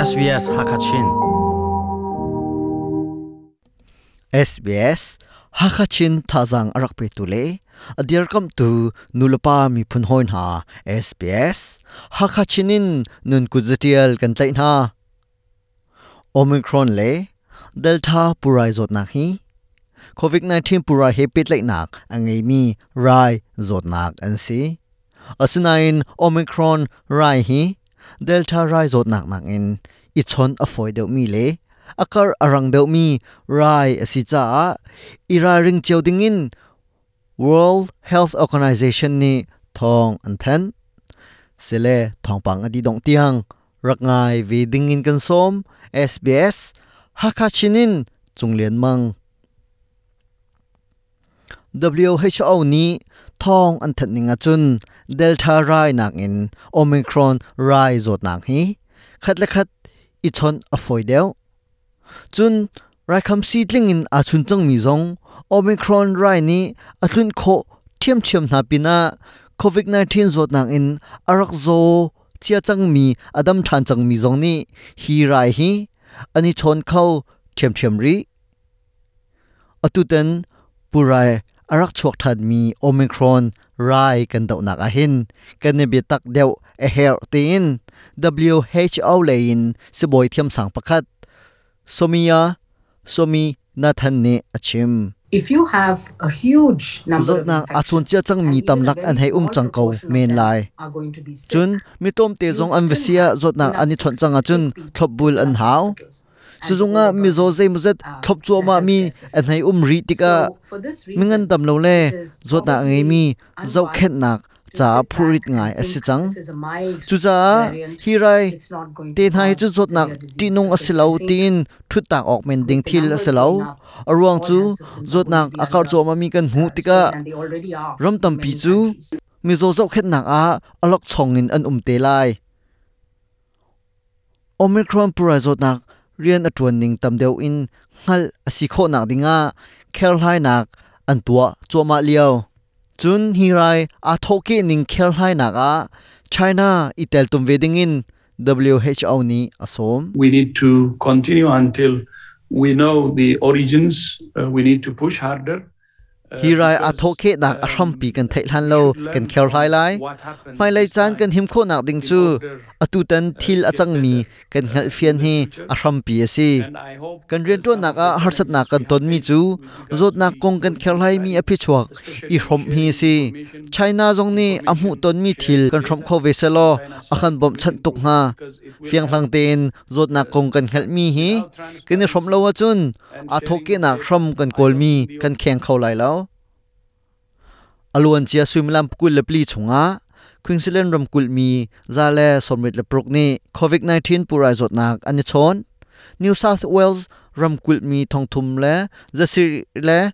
SBS Hakachin. SBS Hakachin thazang arak pe tu le adirkam tu nulapa mi phun hoi hna SBS Hakachin in nun kuzatial kan tlai hna. Omicron le Delta purai zawtnak hi COVID-19 purai he pehtlaihnak a ngeimi rai zawtnak an si. Asinain Omicron rai hi Delta rai zawtnak nakin i chawnh a fawi deuhmi le a karh a rang deuhmi rai a si caah i ralring cio dingin World Health Organization nih thawng an thanh. Sile thawngpang a dih dongh tiang rak ngai ve ding in kan sawm. SBS Hakha Chin in Cung Lian Mang. WHO nih thawng an thanh ning ahcun Delta rai nakin Omicron rai zawtnak hi khat le khat i chawnh a fawi deuh. Cun raikhamsi tling in aa chun cangmi zong Omicron rai nih a tlunh khawh ṭhiamṭhiam hna pinah COVID-19 zawtnak in a rak zaw cia cangmi a dam ṭhan cangmi zong nih hi rai hi an i chawn kho ṭhiamṭhiam rih. Atutan purai a rak chuak ṭhanmi Omicron rai kan dohnak ahhin kan i biatak deuh a herh tiin WHO lei in sibawi thiamsang pakhat Soumya Swaminathan nih a chim. If you have a huge number of Zawtnak aa chawn cia infections cangmi and even a tamlak very an hei um small cang ko proportion of men them lai. are going to be sick, Cun mi tlawmte you zong an va still si ah have zawtnak enough an i chawnh cang ahcun sick people thlopbul to an flood hau. hospitals and Sizung ah mizaw overburden zeimawzat thlop the cuahmah mi healthcare an system. hei um rih tikah So, for this mingan reason, dam lo le it is zawtnak a probably ngeimi unwise zohkhenhnak to caah sit phurit back and ngai a si think cang. this is a mild Cucaah variant, hi rai it's not going te to hna hi cu cause zawtnak severe disease ṭihnung a si because lo I think tiin ṭhuttak awk men ding with the thil a si numbers lo. going up, A ruang all cu health systems are going to zawtnak be a karh under cuahmahmi kan hmuh tikah strain, and they already are ram in tampi many cu countries. mizaw zohkhenhnak ah awlokchong in an um te lai. Omicron purai zawtnak rian a ṭuan ning tam deuh in hngalh a si khawhnak dingah kherhlainak an tuah cuahmah lio. Cun hi rai aa thawhkeh ning kherhlainak ah China i teltum ve dingin WHO nih a sawm. We need to continue until we know the origins. We need to push harder. Hi rai aa thawhkhehnak a hrampi kan theih hlan lo kan kherhlai lai. Hmailei caan kan him khawhnak ding cu atutan thil a cangmi kan hngalhfian hi a hrampi a si. Kan rianṭuannak ah harsatnak kan tonmi cu zawtnak kong kan kherhlaimi a phichuak i hrawmh hi a si. China zong nih a hmuhtonmi thil kan hrawmh kho ve sehlaw a kan bawmhchanh tuk hnga. Fianghlang tein zawtnak kong kan hngalhmi hi kan i hrawmh lo ahcun aa thawhkehnak hram kan kawlmi kan kheng kho lai lo. A luancia suimilam 24 chungah Queensland ramkulh mi 126 nih COVID-19 pulrai zawtnak an i chawn. New South Wales ramkulh mi 3,663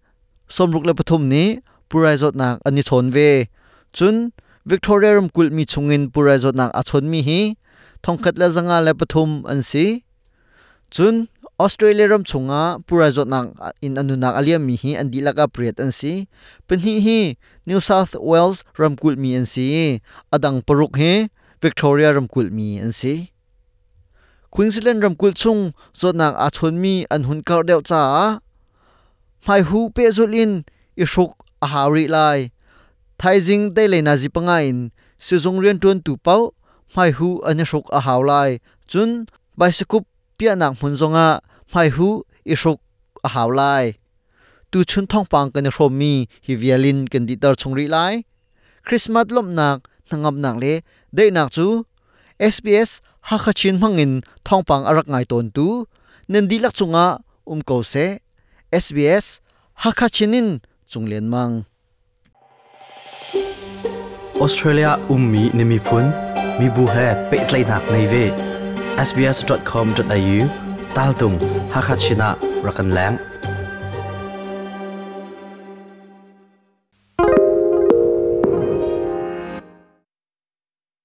nih pulrai zawtnak an i chawn ve. Cun Victoria ramkulh mi chungin pulrai zawtnak aa chawnmi hi 1,503 an si. Cun Australia ram chungah pulrai zawtnak in a nunnak a liammi hi an dihlak ah pariat an si. Pahnih hi New South Wales ramkulh mi an si i a dang paruk hi Victoria ramkulh mi an si. Queensland ramkulh chung zawtnak aa chawnmi an hun karh deuh caah hmaihu pehzulh in i hruk a hau rih lai. Thaizing deilei nazi panga in sizung rianṭuantu paoh hmaihu an i hruk a hau lai. Cun Baisikup piahnak hmun zongah hmaihuh i hruk a hau lai. Tuchun thawngpang kan i hrawmmi hi vial in kan dihter chung rih lai. Christmas lawmhnak, hnangamnak le daihnak cu SBS Hakha Chin hmangin thawngpang a rak ngai tawntu nan dihlak cungah um ko seh. SBS Hakha Chin in Cung Lian Mang. Australia ummi na miphun, mibu he pehtlaihnak ngei ve. sbs.com.au taltung Hakha Chin ah rak kan leng.